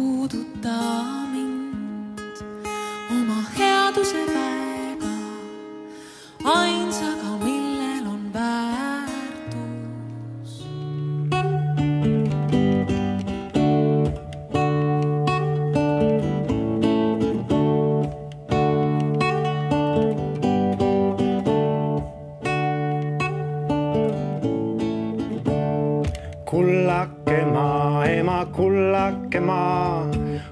puuduta mind oma headuse väega, ainsaga, millel on väärtus. Kullake maa, ema, kullake maa,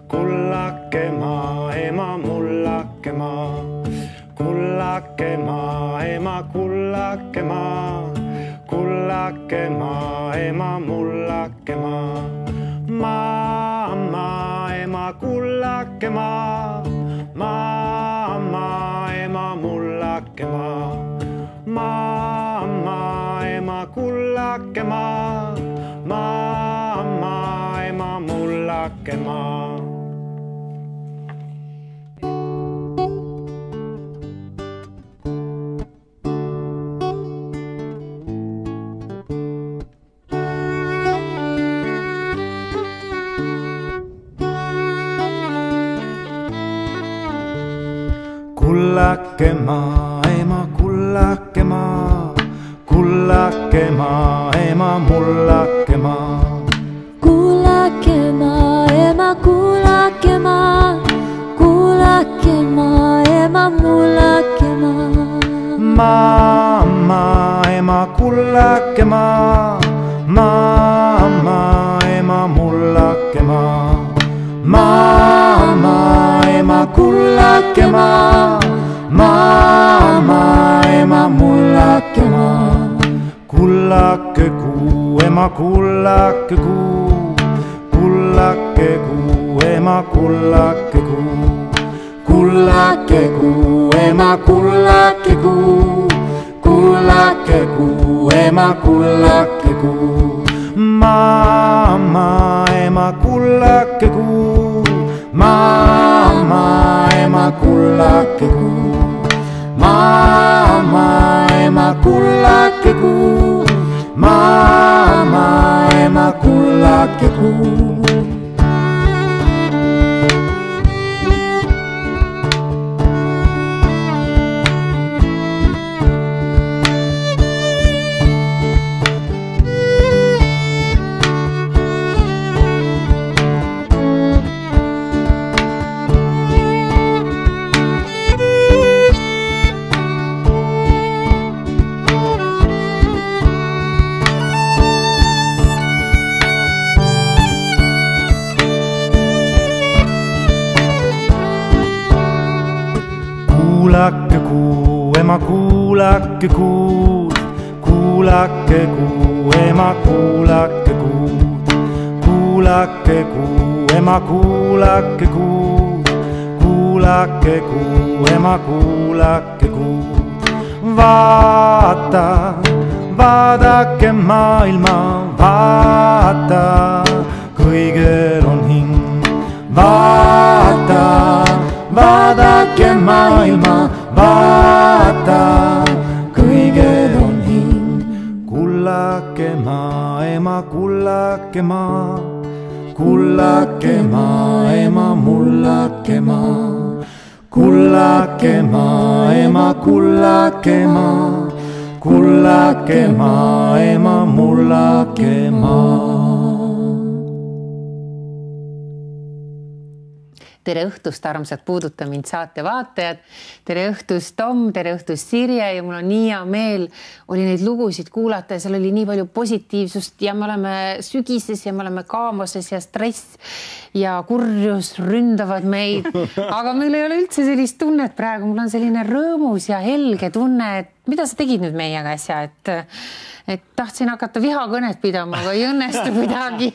kullake maa, ema, mullake maa. Kullake maa, ema, kullake maa, kullake maa, ema, mullake maa. Mamma, ema, kullake maa, mamma, ema, mullake maa. Mamma, ema, kullake maa, mamma, ema, mullake maa. Kullake maa, ema, kullake maa, kullake maa, ema, mullake maa. Kullake maa, ema, kullake maa, kullake maa, ema, mullake maa. Mamma, ema, kullake maa, mamma, ema, mullake maa. Mamma, ema, kullake maa, mamma, ema, mullake maa. Kullake kuu, ema, kullake kuu, kullake kuu, ema, kullake kuu. Kullake kuu, ema, kullake kuu, kullake kuu, ema, kullake kuu. Mamma, ema, kullake kuu, mamma, ema, kullake kuu. Mamma, ema, kullake kuu, mamma, ema, kullake kuu. Kuulake kuu, ema, kuulake kuud, kuulake kuu, ema, kuulake kuud. Kuulake kuu, ema, kuulake kuud, kuulake kuu, ema, kuulake kuud. Vaata, vaadake maailma, vaata, kõigel on hing. Vaata, vaadake maailma, vaata, kõigel on hing. Kullake maa, ema, kullake maa, kullake maa, ema, mullake maa. Kullake maa, ema, kullake maa, kullake maa, ema, mullake maa. Tere õhtust, armsad Puuduta mind saate vaatajad. Tere õhtust, Tom, tere õhtust, Sirje, ja mul on nii hea meel oli neid lugusid kuulata ja seal oli nii palju positiivsust ja me oleme sügises ja me oleme kaamoses ja stress ja kurjus ründavad meid. Aga meil ei ole üldse sellist tunnet praegu. Mul on selline rõõmus ja helge tunne, et mida sa tegid nüüd meiega asja, et tahtsin hakata vihakõnet pidama, aga ei õnnestu kuidagi.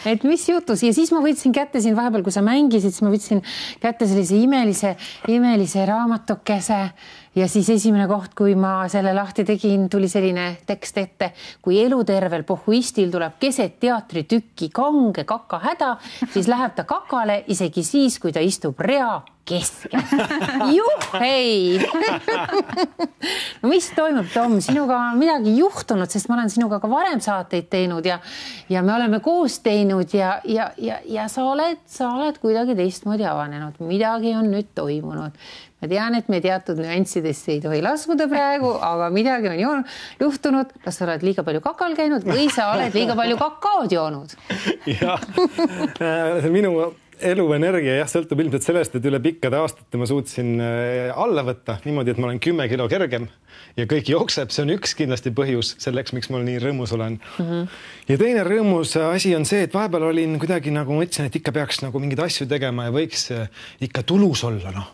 Et mis jutus? Ja siis ma võtsin kätte siin vahepeal, kui sa mängisid, siis ma võtsin kätte sellise imelise raamatukese ja siis esimene koht, kui ma selle lahti tegin, tuli selline tekst ette, kui elutervel pohhuistil tuleb keset teatritükki kange kakahäda, siis läheb ta kakale isegi siis, kui ta istub rea keskel. Juhhei! No mis toimub, Tom? Sinuga on midagi juhtunud, sest ma olen sinuga ka varem saateid teinud ja me oleme koos teinud ja sa oled kuidagi teistmoodi avanenud. Midagi on nüüd toimunud. Ma tean, et me teatud nüanssidesse ei tohi laskuda praegu, aga midagi on juhtunud. Kas sa oled liiga palju kakal käinud või sa oled liiga palju kakaod joonud? Jah, minu eluenergia sõltub ilmselt sellest, et üle pikkade aastate ma suutsin alla võtta niimoodi, et ma olen 10 kilo kergem ja kõik jookseb. See on üks kindlasti põhjus selleks, miks ma nii rõõmus olen. Ja teine rõõmus asi on see, et vahepeal olin kuidagi nagu mõtlesin, et ikka peaks nagu mingeid asju tegema ja võiks ikka tulus olla,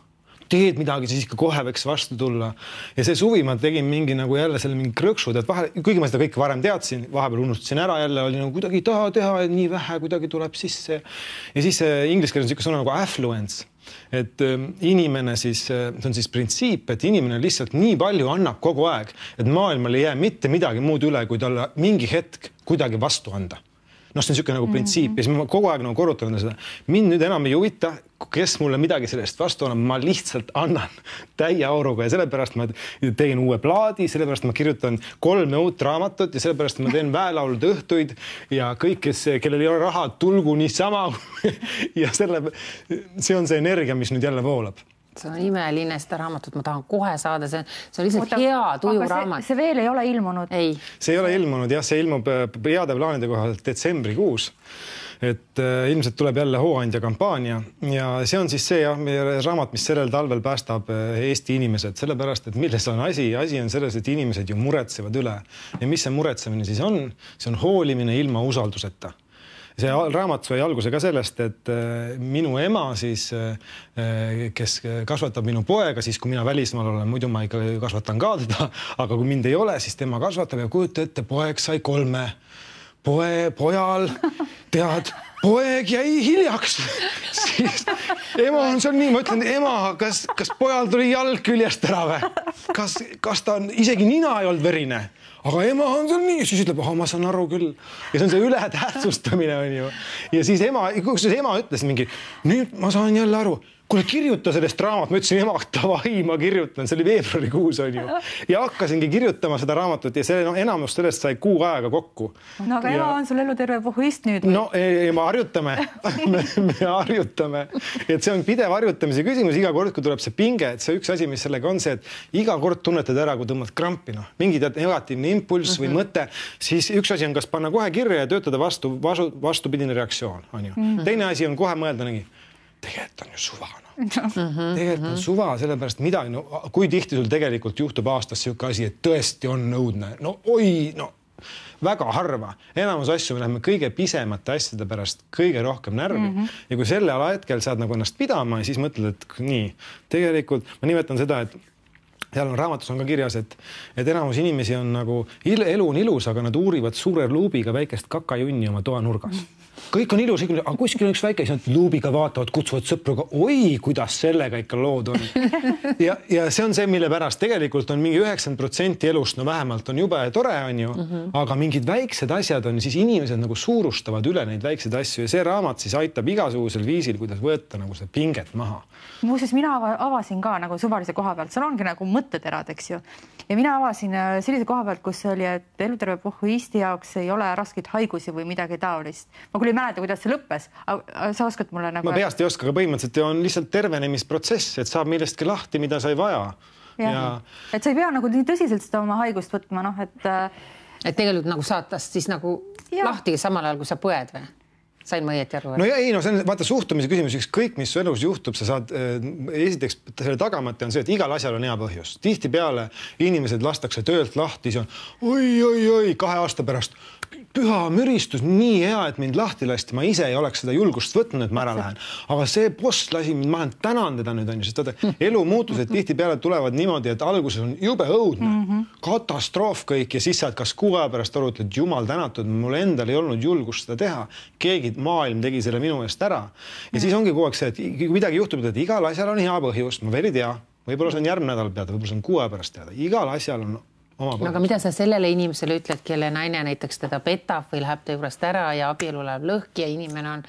teed midagi, siis ikka kohe võiks vastu tulla. Ja see suvi ma tegin mingi nagu jälle selle mingi krõksud, et vahel, kuigi ma seda kõike varem teadsin, vahepeal unustasin ära jälle, oli nagu kuidagi taha teha, et nii vähe kuidagi tuleb sisse. Ja siis inglise keeles on siuke sõna nagu affluence, et inimene siis, see on siis printsiip, et inimene lihtsalt nii palju annab kogu aeg, et maailmal ei jää mitte midagi muud üle, kui talle mingi hetk kuidagi vastu anda. See on siuke nagu printsiip ja siis ma kogu aeg nagu korrutan seda. Mind nüüd enam ei huvita, kes mulle midagi sellest vastu annab, ma lihtsalt annan täie auruga ja sellepärast ma tegin uue plaadi, sellepärast ma kirjutan 3 uut raamatut ja sellepärast ma teen väelaulud õhtuid ja kõik, kellel ei ole raha, tulgu niisama ja see on see energia, mis nüüd jälle voolab. See on imeline seda raamatut, ma tahan kohe saada, see on lihtsalt hea tuju raamat. See veel ei ole ilmunud? Ei. See ei ole ilmunud, jah, see ilmub heade plaanide kohalt detsembrikuus. Et ilmselt tuleb jälle hooandja kampaania ja see on siis see raamat, mis sellel talvel päästab Eesti inimesed, sellepärast, et milles on asi? Asi on selles, et inimesed ju muretsevad üle. Ja mis see muretsemine siis on? See on hoolimine ilma usalduseta. See raamat sai alguse ka sellest, et minu ema siis, kes kasvatab minu poega, siis kui mina välismaal olen, muidu ma ikka kasvatan ka teda, aga kui mind ei ole, siis tema kasvatab ja kujuta ette, poeg sai 3. Pojal, tead, poeg jäi hiljaks. Siis ema on seal nii, ma ütlen, ema, kas pojal tuli jalg küljest ära või? Kas ta on, isegi nina ei olnud verine? Aga ema on seal nii, siis ütleb, ma saan aru küll. Ja see on see ületähtsustamine on ju. Ja siis ema ütles mingi, nüüd ma saan jälle aru, kuule kirjuta sellest raamat, ma ütlesin ema, tavai, ma kirjutan, see oli veebruarikuus on ju. Ja hakkasingi kirjutama seda raamatut ja enamus sellest sai 6 aega kokku. No aga ema on sul eluterve pohhuist nüüd? No me harjutame, me harjutame. Et see on pidev harjutamise küsimus, iga kord, kui tuleb see pinge, et see üks asi, mis sellega on see, et iga kord tunnetad ära, kui tõmbad krampi, mingi negatiivne impulss või mõte, siis üks asi on kas panna kohe kirja ja töötada vastupidine reaktsioon, on ju. Teine asi on kohe mõelda nägi, tegelikult on ju suva. Tegelikult on suva, sellepärast midagi, kui tihti sul tegelikult juhtub aastas siuke asi, et tõesti on nõudne. Väga harva. Enamus asju me läheme kõige pisemate asjade pärast kõige rohkem närvi. Ja kui selle alahetkel saad nagu ennast pidama ja siis mõtled, et nii, tegelikult ma nimetan seda, et seal on raamatus on ka kirjas, et enamus inimesi on nagu, elu on ilus, aga nad uurivad suure luubiga väikest kakajunni oma toa nurgas. Kõik on ilus, aga kuskil on üks väike, siis nad luubiga vaatavad, kutsuvad sõpruga, oi, kuidas sellega ikka lood on. Ja see on see, mille pärast tegelikult on mingi 90% elust, vähemalt on jube tore, on ju, aga mingid väiksed asjad on, siis inimesed nagu suurustavad üle neid väikseid asju ja see raamat siis aitab igasugusel viisil, kuidas võtta nagu seda pinget maha. Muuseas, mina avasin ka nagu suvalise koha pealt, seal ongi nagu mõtteterad, eks ju. Ja mina avasin sellise koha pealt, kus oli, et eluterve pohhuisti jaoks ei ole raskeid haigusi või midagi taolist. Ma küll ei mäleta, kuidas see lõppes, aga sa oskad mulle nagu... Ma peast ei oska, aga põhimõtteliselt on lihtsalt tervenemisprotsess, et saab millestki lahti, mida sa ei vaja. Ja... Et sa ei pea nagu nii tõsiselt seda oma haigust võtma, et tegelikult nagu saatast siis nagu lahti samal ajal, kui sa põed või? Sain ma õieti aru? No ja ei, see on vaata suhtumise küsimus, ükskõik mis su elus juhtub, sa saad, esiteks selle tagamata on see, et igal asjal on hea põhjus. Tihtipeale inimesed lastakse töölt lahti, see on oi, 2 aasta pärast püha müristus, nii hea, et mind lahti lasti, ma ise ei oleks seda julgust võtnud, et ma ära lähen. Aga see boss lasi mind, ma tänan teda nüüd, sest elu muutused tihtipeale tulevad niimoodi, et alguses on jube õudne, katastroof kõik ja siis saad kas 6 aja pärast aru, et jumal tänatud, mul endal ei olnud julgust seda teha. Keegi maailm tegi selle minu eest ära. Ja siis ongi kogu aeg see, et kui midagi juhtub, et igal asjal on hea põhjus, ma veel ei tea. võib-olla see on järgmine nädal teada, võib-olla see on 6 pärast teada. Igal asjal on oma põhjus. Aga mida sa sellele inimesele ütled, kelle naine näiteks teda petab või läheb ta juurest ära ja abielu läheb lõhki ja inimene on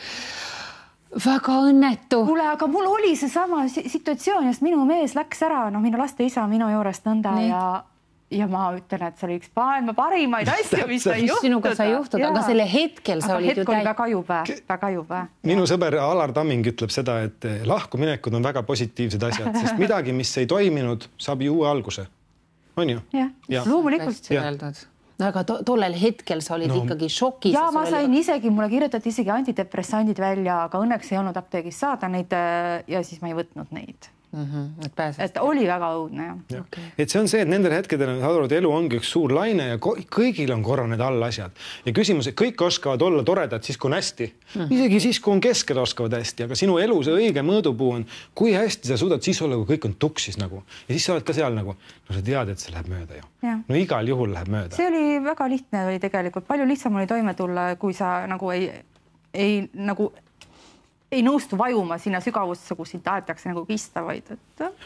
väga õnnetu. Kuule, aga mul oli see sama situatsioon, sest minu mees läks ära, minu laste isa minu juurest nõnda ja ma ütlen, et see oli üks maailma parimaid asju, mis sai juhtuda. Sinuga sai juhtuda, aga selle hetkel sa olid ju väga jube. Minu sõber Alar Tamming ütleb seda, et lahkuminekud on väga positiivsed asjad, sest midagi, mis ei toiminud, saab ju uue alguse. On ju? Ja, loomulikult. Aga tollel hetkel sa olid ikkagi šokis. Ja ma sain isegi, mulle kirjutati isegi antidepressandid välja, aga õnneks ei olnud apteegis saada neid ja siis ma ei võtnud neid. Et oli väga õudne. Et see on see, et nendel hetkedel elu ongi üks suur laine ja kõigil on korra need all asjad. Ja küsimus, et kõik oskavad olla toredad siis, kui on hästi. Isegi siis, kui on keskel oskavad hästi, aga sinu elu see õige mõõdupuu on, kui hästi sa suudad siis olla, kui kõik on tuksis nagu. Ja siis sa oled ka seal nagu, sa tead, et see läheb mööda ju. No igal juhul läheb mööda. See oli väga lihtne oli tegelikult. Palju lihtsam oli toime tulla, kui sa nagu ei nõustu vajuma sinna sügavusse, kus sind tahetakse nagu kista, vaid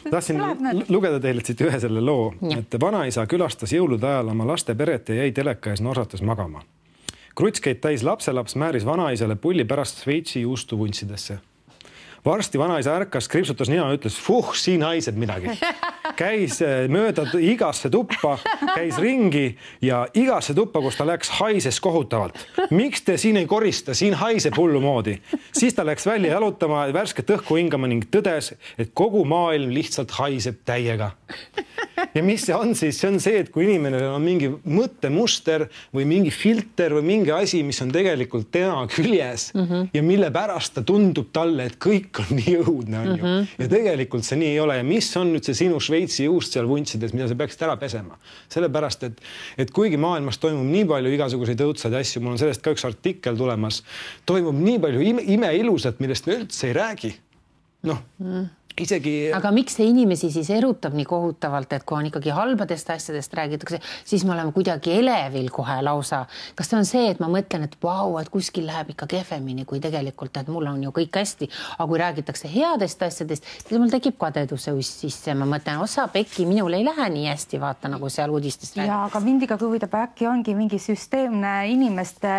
tahtsin lugeda teile siit ühe selle loo, et vanaisa külastas jõulude ajal oma laste peret ja jäi teleka ees norsates magama. Krutskeid täis lapselaps määris vanaisale pulli pärast Šveitsi juustuvuntsidesse. Varsti vanaisa ärkas, kripsutas nina ja ütles, siin haiseb midagi. Käis mööda igasse tuppa, käis ringi ja igasse tuppa, kus ta läks, haises kohutavalt. Miks te siin ei korista? Siin haiseb hullu moodi. Siis ta läks välja jalutama, värsket õhku hingama ning tõdes, et kogu maailm lihtsalt haiseb täiega. Ja mis see on siis? See on see, et kui inimene on mingi mõttemuster või mingi filter või mingi asi, mis on tegelikult tema küljes ja mille pärast ta tundub talle, et kõik on nii õudne, on ju. Ja tegelikult see nii ei ole. Ja mis on nüüd see sinu Šveitsi juust seal vuntsides, mida sa peaksid ära pesema? Sellepärast, et kuigi maailmas toimub nii palju igasuguseid õudsaid asju, mul on sellest ka üks artikkel tulemas, toimub nii palju imeilusat, millest me üldse ei räägi. Isegi... Aga miks see inimesi siis erutab nii kohutavalt, et kui on ikkagi halbadest asjadest räägitakse, siis me oleme kuidagi elevil kohe lausa. Kas see on see, et ma mõtlen, et et kuskil läheb ikka kehvemini, kui tegelikult, et mul on ju kõik hästi. Aga kui räägitakse headest asjadest, siis mul tekib kadeduse uss sisse. Ma mõtlen, osa pekki, minul ei lähe nii hästi, vaata nagu seal uudistest räägib. Ja, aga mind ikka huvitab, äkki ongi mingi süsteemne inimeste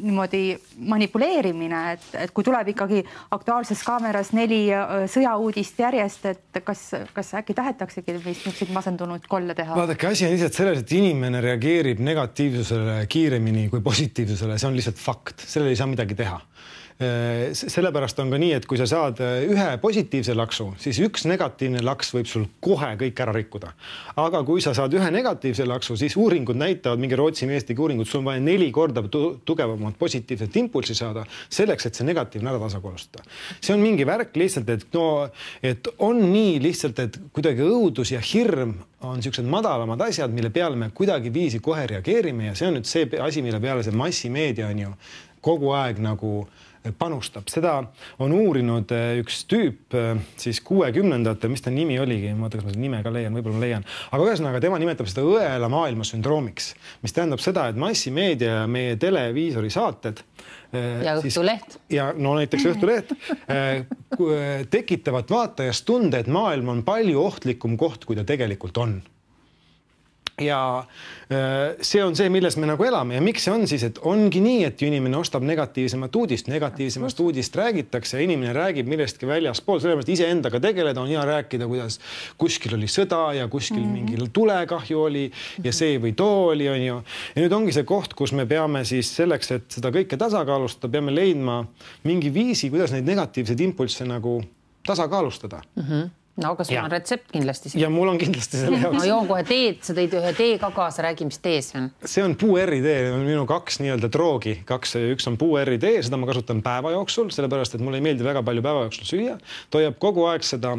niimoodi manipuleerimine, et kui tuleb ikkagi Aktuaalses kaameras 4 sõjauudist järjest, et kas äkki tahetaksegi meist masendunud kolle teha? Vaadake, asi on lihtsalt selles, et inimene reageerib negatiivsusele kiiremini kui positiivsusele. See on lihtsalt fakt. Sellele ei saa midagi teha. Sellepärast on ka nii, et kui sa saad ühe positiivse laksu, siis üks negatiivne laks võib sul kohe kõik ära rikkuda. Aga kui sa saad ühe negatiivse laksu, siis uuringud näitavad, mingi Rootsi meestegi uuringud, sul on vaja 4 korda tugevamat positiivset impulsi saada selleks, et see negatiivne ära tasakaalustada. See on mingi värk lihtsalt, et on nii lihtsalt, et kuidagi õudus ja hirm on sellised madalamad asjad, mille peale me kuidagi viisi kohe reageerime ja see on nüüd see asi, mille peale see massimeedia on ju kogu aeg nagu panustab. Seda on uurinud üks tüüp siis 60-ndatel, mis ta nimi oligi, ma mõtlen, kas ma seda nime ka leian, võib-olla leian. Aga ühesõnaga tema nimetab seda õela maailma sündroomiks, mis tähendab seda, et massimeedia ja meie televiisori saated ja Õhtuleht. Ja näiteks Õhtuleht tekitavad vaatajast tunde, et maailm on palju ohtlikum koht, kui ta tegelikult on. Ja see on see, milles me nagu elame ja miks see on siis, et ongi nii, et inimene ostab negatiivsemat uudist räägitakse ja inimene räägib millestki väljaspool, sellepärast ise endaga tegeleda on hea rääkida, kuidas kuskil oli sõda ja kuskil mingil tulekahju oli ja see või too oli, on ju. Ja nüüd ongi see koht, kus me peame siis selleks, et seda kõike tasakaalustada, peame leidma mingi viisi, kuidas neid negatiivseid impulsse nagu tasakaalustada. No, kas sul on retsept kindlasti? Ja mul on kindlasti selle jaoks. No joon kohe teed, sa tõid ühe tee ka kaasa, räägi, mis tee see on? See on puuerri tee, on minu 2 nii-öelda droogi. Üks on puuerri tee, seda ma kasutan päeva jooksul, sellepärast, et mulle ei meeldi väga palju päeva jooksul süüa. Toijab kogu aeg seda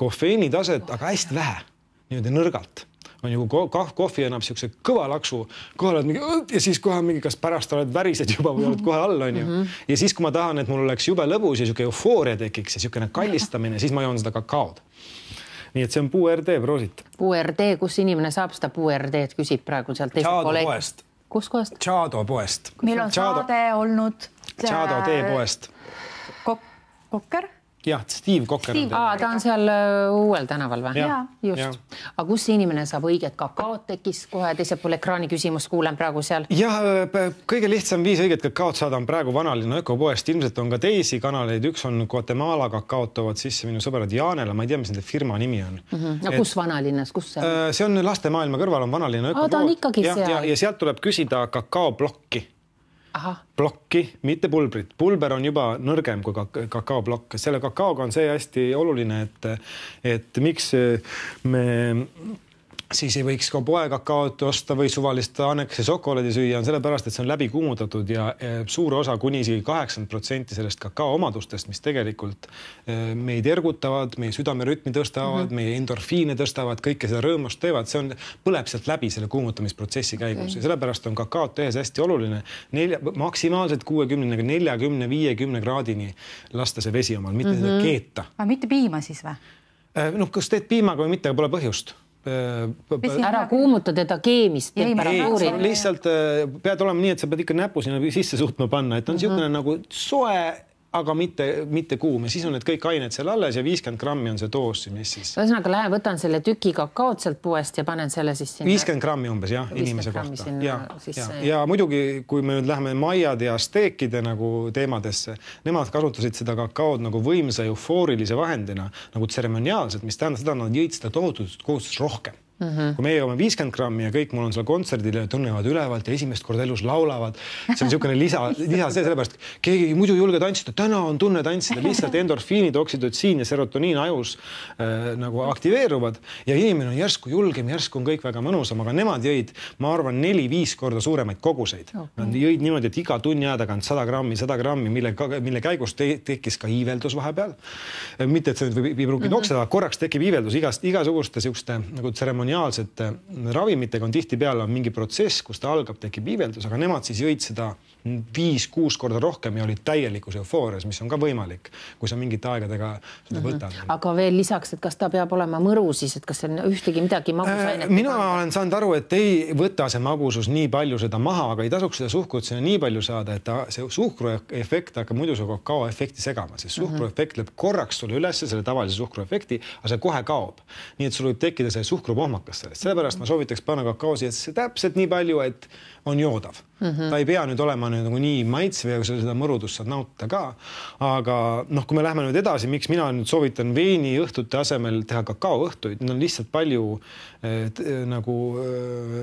kofeini taset, aga hästi vähe, nii-öelda nõrgalt. On ju, kohvi annab siukse kõva laksu, kohe oled mingi, ja siis kohe mingi, kas pärast oled värised juba või oled kohe all, on ju. Ja siis, kui ma tahan, et mul oleks jube lõbus ja siuke eufooria tekiks ja siukene kallistamine, siis ma joon seda kakaod. Nii et see on puuerdee, proosit. Puuerdee, kus inimene saab seda puuerdeed, küsib praegu sealt Tšaado poest. Kus kohast? Tšaado poest. Meil on saade olnud. Tšaado tee poest. Kokker? Jah, Steve Kokker. Ta on seal uuel tänaval või? Just. Aga kus see inimene saab õiget kakaot tekkis kohe teisel pool ekraani küsimus, kuulen praegu seal? Jah, kõige lihtsam viis õiget kakaot saada on praegu Vanalinna ökopoest. Ilmselt on ka teisi kanaleid. Üks on Guatemala kakaot toovad sisse minu sõbrad Jaanela. Ma ei tea, mis nende firma nimi on. Kus Vanalinnas? Kus see on? See on lastemaailma kõrval on Vanalinna ökopood. Ta on ikkagi seal. Ja sealt tuleb küsida kakaoblokki. Blokki, mitte pulbrit. Pulber on juba nõrgem kui kakaoblokk. Selle kakaoga on see hästi oluline, et miks me siis ei võiks ka poekakaot osta või suvalist Annekese šokolaadi süüa, on sellepärast, et see on läbi kuumutatud ja suur osa kuni isegi 80% sellest kakao omadustest, mis tegelikult meid ergutavad, meie südamerütmi tõstavad, meie endorfiine tõstavad, kõike seda rõõmust teevad, see on, põleb sealt läbi selle kuumutamisprotsessi käigus ja sellepärast on kakaot tehes hästi oluline maksimaalselt 60, 40, 50 kraadini lasta see vesi omal, mitte seda keeta. Aga mitte piima siis või? Kas teed piimaga või mitte, pole põhjust. Ära kuumuta teda keemist. Lihtsalt pead olema nii, et sa pead ikka näpu sinna sisse suutma panna, et on niisugune nagu soe, aga mitte kuum ja siis on need kõik ained seal alles ja 50 grammi on see doos, mis siis. Ühesõnaga lähen, võtan selle tüki kakaot sealt puest ja panen selle siis sinna. 50 grammi umbes, jah, inimese kohta. Ja muidugi, kui me nüüd läheme maiad ja steekide nagu teemadesse, nemad kasutasid seda kakaod nagu võimsa eufoorilise vahendina, nagu tseremoniaalselt, mis tähendab seda, nad jõid seda tohutut kohustust rohkem. Kui meie joome 50 grammi ja kõik mul on seal kontserdil ja tunnevad ülevalt ja esimest korda elus laulavad, see on niisugune lisa sellepärast, keegi muidu julge tantsida, täna on tunne tantsida, lihtsalt endorfiinid, oksüdotsiin ja serotoniin ajus nagu aktiveeruvad ja inimene on järsku julgem, järsku on kõik väga mõnusam, aga nemad jõid, ma arvan, 4-5 korda suuremaid koguseid. Nad jõid niimoodi, et iga tunni aja tagant 100 grammi, mille käigus tekkis ka iiveldus vahepeal. Mitte, et see võib pruugi nokseda, korraks tekib iiveldus igasuguste siukste nagu tseremoniaalsete ravimitega on tihtipeale mingi protsess, kus ta algab, tekib iiveldus, aga nemad siis jõid seda 5-6 korda rohkem ja olid täielikus eufoorias, mis on ka võimalik, kui sa mingite aegadega seda võtad. Aga veel lisaks, et kas ta peab olema mõru siis, et kas see on ühtegi midagi magusainet? Mina olen saanud aru, et ei võta see magusus nii palju seda maha, aga ei tasuks seda suhkrut sinna nii palju saada, et see suhkruefekt hakkab muidu su kakaoefekti segama, sest suhkruefekt lööb korraks sulle üles selle tavalise suhkruefekti, aga see kohe kaob. Nii et sul võib tekkida see suhkrupohmakas sellest. Sellepärast ma soovitaks panna kakaosi, et see täpselt nii palju, et on joodav. Ta ei pea nüüd olema nagu nii maitsv ja seda mõrudust saad nautida ka. Aga kui me lähme nüüd edasi, miks mina nüüd soovitan veini õhtute asemel teha kakaoõhtuid, need on lihtsalt palju nagu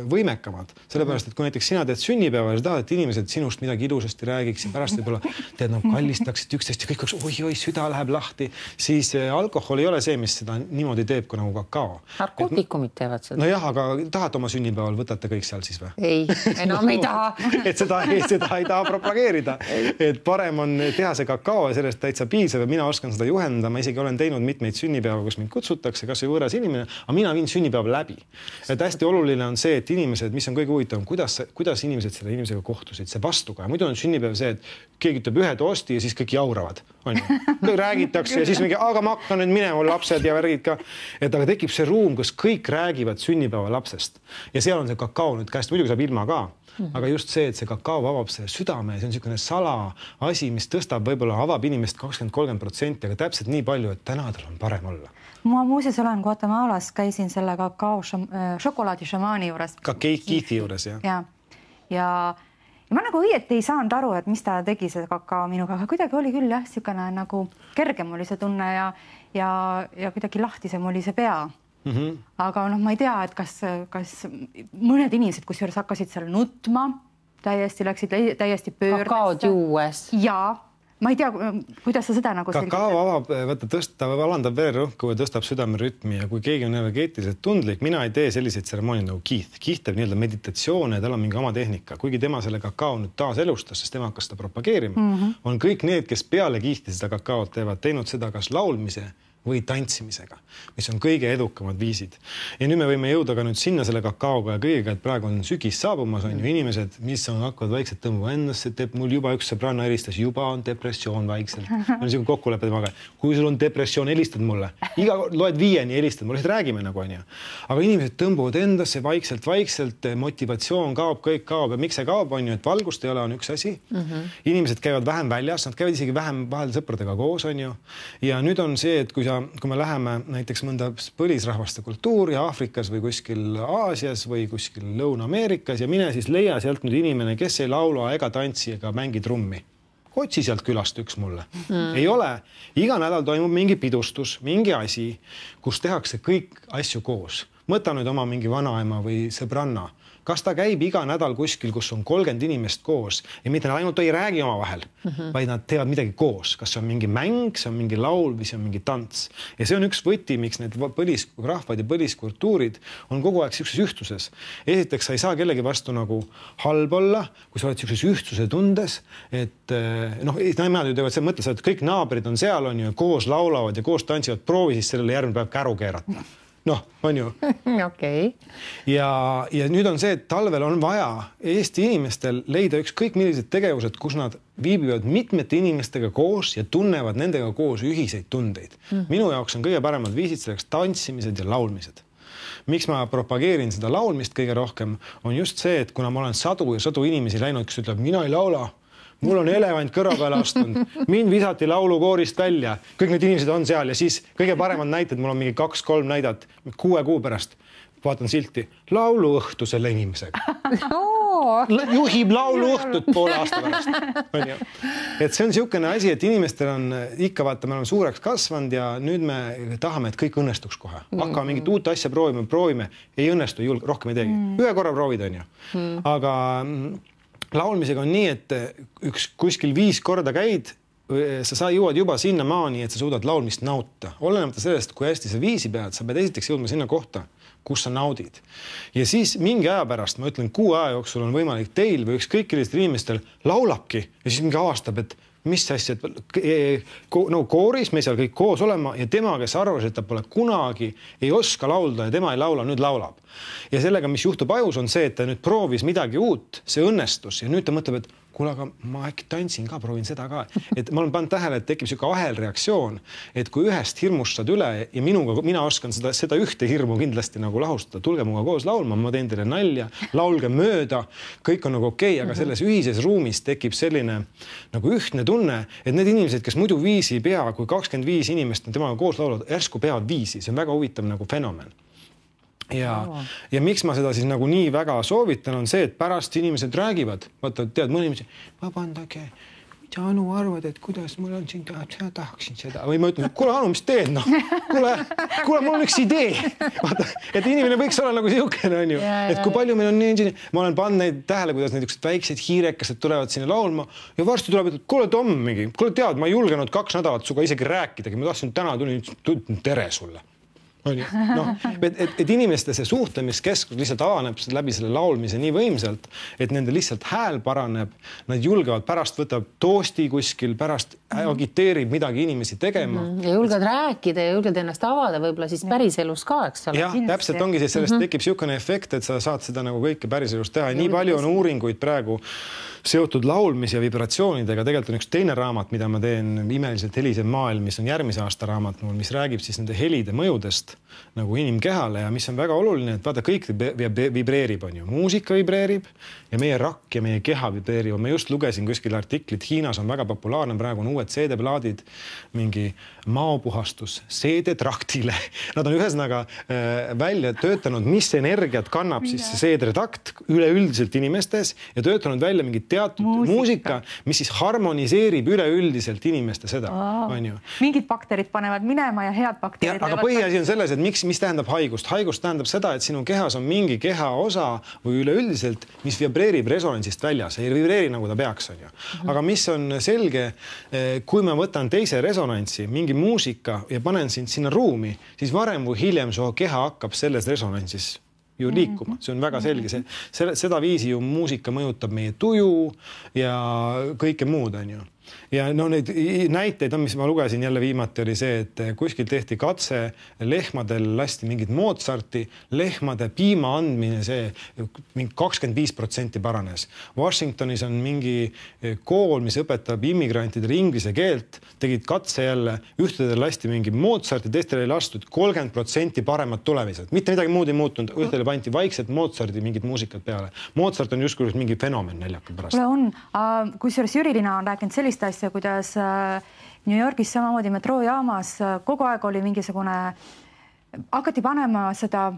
võimekamad. Sellepärast, et kui näiteks sina teed sünnipäeva ja sa tahad, et inimesed sinust midagi ilusasti räägiks ja pärast võib-olla teed kallistaksid üksteist ja kõik oleks oi, süda läheb lahti, siis alkohol ei ole see, mis seda niimoodi teeb kui nagu kakao. Narkootikumid teevad seda. Nojah, aga tahate oma sünnipäeval, võtate kõik seal siis või? Ei, enam ei taha. Et seda ei taha propageerida. Et parem on teha see kakao ja sellest täitsa piisab ja mina oskan seda juhendada. Ma isegi olen teinud mitmeid sünnipäeva, kus mind kutsutakse, kas või võõras inimene, aga mina viin sünnipäeva läbi. Et hästi oluline on see, et inimesed, mis on kõige huvitavam, kuidas inimesed selle inimesega kohtusid, see vastuga. Muidu on sünnipäev see, et keegi ütleb ühe toosti ja siis kõik jauravad. Kõik räägitakse ja siis mingi, aga ma hakkan nüüd minema lapsed ja värgid ka. Et aga tekib see ruum, kus kõik räägivad sünnipäeva lapsest ja seal on see kakao nüüd käest, muidugi saab ilma ka. Aga just see, et see kakao avab see südame, see on niisugune sala asi, mis tõstab võib-olla avab inimest 20-30%, aga täpselt nii palju, et täna tal on parem olla. Ma muuseas olen Guatemalas, käisin selle kakao šokolaadi šamaani juures. Ka Keiti juures, jah. Ja ma nagu õieti ei saanud aru, et mis ta tegi see kakao minuga, aga kuidagi oli küll jah, niisugune nagu kergem oli see tunne ja kuidagi lahtisem oli see pea. Aga ma ei tea, et kas mõned inimesed, kusjuures hakkasid seal nutma, läksid täiesti pöördesse. Kakaod juues. Jaa. Ma ei tea, kuidas sa seda nagu kakao avab, alandab vererõhku ja tõstab südamerütmi ja kui keegi on energeetiliselt tundlik, mina ei tee selliseid tseremooniaid nagu Keith. Keith teeb nii-öelda meditatsioone ja tal on mingi oma tehnika. Kuigi tema selle kakao nüüd taas elustas, sest tema hakkas seda propageerima, on kõik need, kes peale Keith'i seda kakaot teevad, teinud seda kas laulmise või tantsimisega, mis on kõige edukamad viisid. Ja nüüd me võime jõuda ka nüüd sinna selle kakaoga ja kõigega, et praegu on sügis saabumas, on ju inimesed, mis on hakkavad vaikselt tõmbama endasse, mul juba üks sõbranna helistas, juba on depressioon vaikselt. On niisugune kokkulepe temaga. Kui sul on depressioon, helistad mulle. Loed 5 helistad, mulle räägime nagu on ju. Aga inimesed tõmbuvad endasse vaikselt, motivatsioon kaob, kõik kaob ja miks see kaob on ju, et valgust ei ole, on üks asi. Inimesed käivad vähem väljas, nad käivad isegi vähem vahel sõpradega koos on ju. Ja nüüd on see, et kui me läheme näiteks mõnda põlisrahvaste kultuuri Aafrikas või kuskil Aasias või kuskil Lõuna-Ameerikas ja mine siis leia sealt nüüd inimene, kes ei laula ega tantsi ega mängi trummi. Otsi sealt külast üks mulle. Ei ole. Iga nädal toimub mingi pidustus, mingi asi, kus tehakse kõik asju koos. Mõta nüüd oma mingi vanaema või sõbranna. Kas ta käib iga nädal kuskil, kus on 30 inimest koos ja mitte nad ainult ei räägi oma vahel, vaid nad teevad midagi koos. Kas see on mingi mäng, see on mingi laul või see on mingi tants. Ja see on üks võti, miks need põlisrahvad ja põliskultuurid on kogu aeg siukses ühtsuses. Esiteks, sa ei saa kellegi vastu nagu halb olla, kui sa oled siukses ühtsuse tundes, et nemad ju teevad see mõttes, et kõik naabrid on seal on ju, koos laulavad ja koos tantsivad, proovi siis sellele järgmine päev käru keerata. On ju. Okei. Ja nüüd on see, et talvel on vaja Eesti inimestel leida ükskõik millised tegevused, kus nad viibivad mitmete inimestega koos ja tunnevad nendega koos ühiseid tundeid. Minu jaoks on kõige paremad viisid selleks tantsimised ja laulmised. Miks ma propageerin seda laulmist kõige rohkem, on just see, et kuna ma olen sadu inimesi läinud, kes ütleb, mina ei laula, mul on elevant kõrva peale astunud, mind visati laulukoorist välja, kõik need inimesed on seal ja siis kõige paremad näited, mul on mingi 2-3 näidat 6 kuu pärast, vaatan silti, lauluõhtu selle inimesega. Juhib lauluõhtut poole aasta pärast. Et see on niisugune asi, et inimestel on ikka vaata, me oleme suureks kasvanud ja nüüd me tahame, et kõik õnnestuks kohe. Hakkame mingit uut asja proovime, ei õnnestu, rohkem ei teegi. Ühe korra proovid on ju. Aga laulmisega on nii, et kuskil 5 korda käid, sa jõuad juba sinna maani, et sa suudad laulmist nauta. Olenemata sellest, kui hästi sa viisi pead, sa pead esiteks jõudma sinna kohta, kus sa naudid. Ja siis mingi aja pärast, ma ütlen, 6 aja jooksul on võimalik teil või ükskõik sellistel inimestel laulabki ja siis mingi avastab, et mis asja, et kooris me seal kõik koos olema ja tema, kes arvas, et ta pole kunagi ei oska laulda ja tema ei laula, nüüd laulab. Ja sellega, mis juhtub ajus, on see, et ta nüüd proovis midagi uut, see õnnestus ja nüüd ta mõtleb, et kuule, aga ma äkki tantsin ka, proovin seda ka. Et ma olen pannud tähele, et tekib siuke ahelreaktsioon, et kui ühest hirmust saad üle ja mina oskan seda ühte hirmu kindlasti nagu lahustada, tulge muga koos laulma, ma teen teile nalja, laulge mööda, kõik on nagu okei, aga selles ühises ruumis tekib selline nagu ühtne tunne, et need inimesed, kes muidu viisi ei pea, kui 25 inimest on temaga koos laulavad, järsku peavad viisi, see on väga huvitav nagu fenomen. Ja miks ma seda siis nagu nii väga soovitan, on see, et pärast inimesed räägivad, vaata, tead, mõni inimesed, vabandage, mida Anu arvad, et kuidas mul on siin, tahaksin seda. Või ma ütlen, kuule Anu, mis teed? Kuule, mul on üks idee. Vaata, et inimene võiks olla nagu siukene, on ju. Et kui palju meil on nii, ma olen pannud neid tähele, kuidas need väiksed hiirekesed tulevad sinna laulma ja varsti tuleb, et kuule Tom mingi, kuule tead, ma ei julgenud 2 nädalat suga isegi rääkidagi, ma tahtsin täna tulin tere sulle. Et inimeste see suhtlemiskeskus lihtsalt avaneb läbi selle laulmise nii võimsalt, et nende lihtsalt hääl paraneb, nad julgevad pärast võtab toosti kuskil, pärast agiteerib midagi inimesi tegema. Ja julged rääkida ja julged ennast avada võib-olla siis päriselus ka, eks ole? Jah, täpselt ongi siis sellest tekib siukene efekt, et sa saad seda nagu kõike päriselus teha. Nii palju on uuringuid praegu seotud laulmis ja vibratsioonidega. Tegelikult on üks teine raamat, mida ma teen, Imeliselt helisev maailm, mis on järgmise aasta raamat mul, mis räägib siis nende helide mõjudest nagu inimkehale ja mis on väga oluline, et vaata, kõik vibreerib, on ju. Muusika vibreerib ja meie rakk ja meie keha vibreerib. Ma just lugesin kuskil artiklit, Hiinas on väga populaarne, praegu on uued CD-plaadid, mingi maopuhastus CD-traktile. Nad on ühesõnaga välja töötanud, mis energiat kannab siis see CD-trakt üleüldiselt inimestes ja töötanud välja mingi teatud muusika, mis siis harmoniseerib üleüldiselt inimeste seda. Mingid bakterid panevad minema ja head bakterid. Aga põhiasi on selles, et mis tähendab haigust? Haigust tähendab seda, et sinu kehas on mingi kehaosa või üleüldiselt, mis vibreerib resonantsist väljas. Ei vibreeri nagu ta peaks, on ju. Aga mis on selge, kui ma võtan teise resonantsi, mingi muusika ja panen sind sinna ruumi, siis varem või hiljem su keha hakkab selles resonantsis ju liikuma. See on väga selge. Seda viisi ju muusika mõjutab meie tuju ja kõike muud, on ju. Ja no neid näiteid on, mis ma lugesin jälle viimati, oli see, et kuskil tehti katse, lehmadel lasti mingit Mozarti, lehmade piima andmine, see mingi 25% paranes. Washingtonis on mingi kool, mis õpetab immigrantidele inglise keelt, tegid katse jälle, ühtedel lasti mingi Mozarti, teistele ei lastud 30% paremad tulemised. Mitte midagi muud ei muutunud, ühtedele pandi vaikselt Mozarti mingid muusikad peale. Mozart on justkui mingi fenomen näljaka pärast. On, kusjuures Jürilina on rääkinud sellist asja, kuidas New Yorgis samamoodi metroojaamas kogu aeg oli mingisugune, hakati panema seda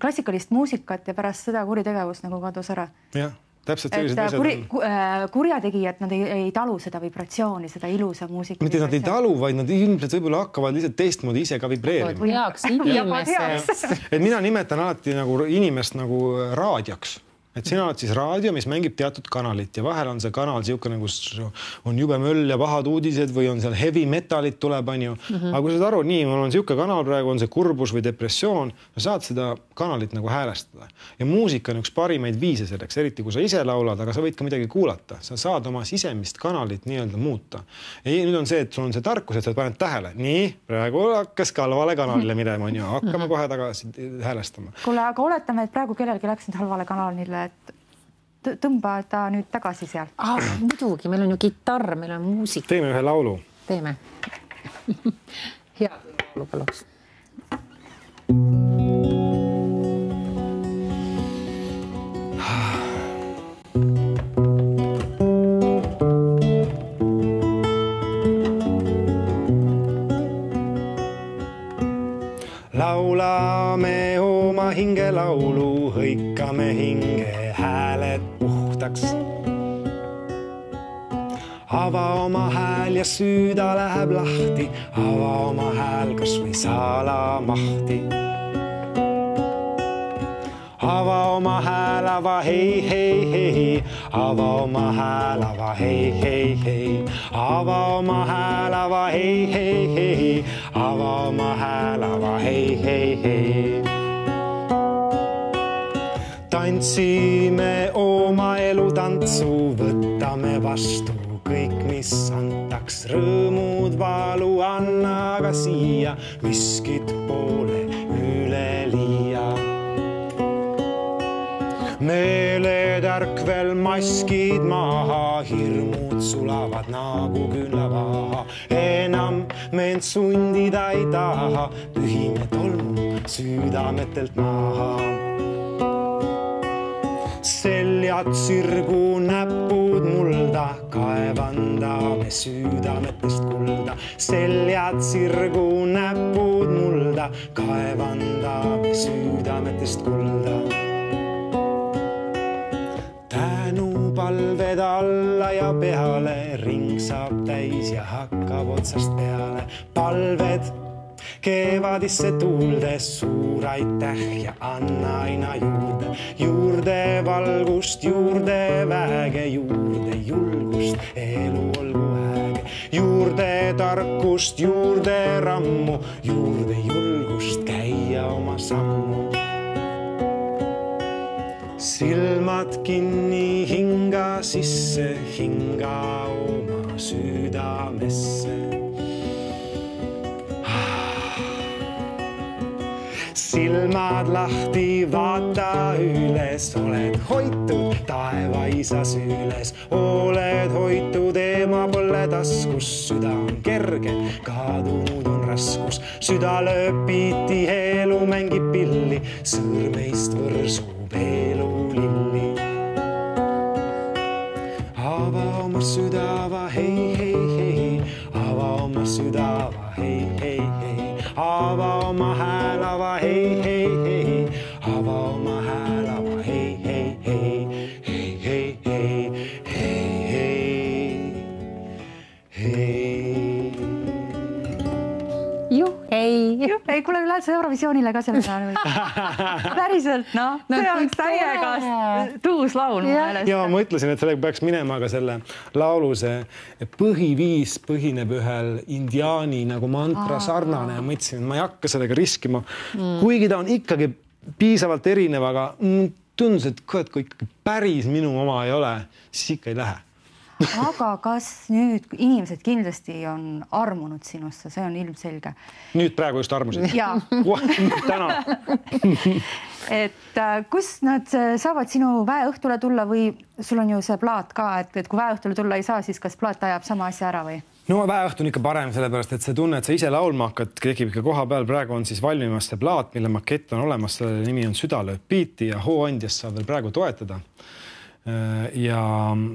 klassikalist muusikat ja pärast seda kuritegevust nagu kadus ära. Jah, täpselt sellised asjad on. Kurjategijad, nad ei talu seda vibratsiooni, seda ilusa muusika. Mitte nad ei talu, vaid nad ilmselt võib-olla hakkavad lihtsalt teistmoodi ise ka vibreerima. Heaks inimeseks. Et mina nimetan alati nagu inimest nagu raadioks. Et sina oled siis raadio, mis mängib teatud kanalit ja vahel on see kanal siukene, kus on jube möll ja pahad uudised või on seal heavy metalit tuleb, on ju. Aga kui saad aru, nii, mul on siuke kanal praegu, on see kurbus või depressioon, saad seda kanalit nagu häälestada. Ja muusika on üks parimaid viise selleks, eriti kui sa ise laulad, aga sa võid ka midagi kuulata. Sa saad oma sisemist kanalit nii-öelda muuta. Ja nüüd on see, et sul on see tarkus, et sa paned tähele. Nii, praegu hakkas halvale kanalile midema, on ju. Hakkame kohe tagasi häälestama. Kuule, aga oletame, et praegu kellelgi läks nüüd halvale kanalile, et tõmba ta nüüd tagasi sealt. Muidugi, meil on ju kitarr, meil on muusik. Teeme ühe laulu. Teeme. Hea laulu paluks. Laulame oma hinge laulu, hõikame hinge hääled puhtaks. Ava oma hääl ja süüda läheb lahti, ava oma hääl kas või salamahti. Ava oma hääl, ava hei, hei, hei, ava oma hääl, ava hei, hei, hei, ava oma hääl, ava hei, hei, hei, ava oma hääl, ava hei, hei, hei. Tantsime oma elu tantsu, võtame vastu kõik, mis antaks, rõõmud, valu, anna aga siia, miskit poole üleliia. Meeletärkvel maskid maha, hirmud sulavad nagu küünlavaha. Enam meent sundida ei taha, pühime tolmu südametelt maha. Seljad sirgu, näpud mulda, kaevandame südametest kulda. Seljad sirgu, näpud mulda, kaevandame südametest kulda. Palved alla ja peale, ring saab täis ja hakkab otsast peale. Palved kevadisse tuuldes, suur aitäh ja anna aina juurde. Juurde valgust, juurde väge, juurde julgust, elu olgu äge. Juurde tarkust, juurde rammu, juurde julgust käia oma sammu. Silmad kinni, hinga sisse, hinga oma südamesse. Silmad lahti, vaata üles, oled hoitud taevaisa süles. Oled hoitud, ema pole taskus, süda on kerge, kadunud on raskus. Süda lööb piiti, elu mängib pilli, sõrmeist võrsub elu lilli. Ava oma südava, hei, hei, hei, ava oma südava, hei, hei, hei. Ava oma hääl, ava hei, hei, hei, ava oma hääl, ava hei, hei, hei, hei, hei, hei, hei, hei. Juh, ei. Ei, kuule, lähed sa Eurovisioonile ka selle peale või? Päriselt, no. See oleks täiega tuus laul. Ja ma ütlesin, et sellega peaks minema ka selle laulu see põhiviis põhineb ühel indiaani nagu mantra sarnane ja mõtlesin, et ma ei hakka sellega riskima. Kuigi ta on ikkagi piisavalt erinev, aga tundus, et kui ikkagi päris minu oma ei ole, siis ikka ei lähe. aga kas nüüd inimesed kindlasti on armunud sinusse, see on ilmselge. Nüüd praegu just armusid? Jaa. Täna. Et kus nad saavad sinu väeõhtule tulla või sul on ju see plaat ka, et kui väeõhtule tulla ei saa, siis kas plaat ajab sama asja ära või? No väeõhtu on ikka parem, sellepärast, et see tunne, et sa ise laulma hakkad, tekib ikka koha peal. Praegu on siis valmimas see plaat, mille makett on olemas, selle nimi on Südalööb biiti ja hooandjast saab veel praegu toetada. Ja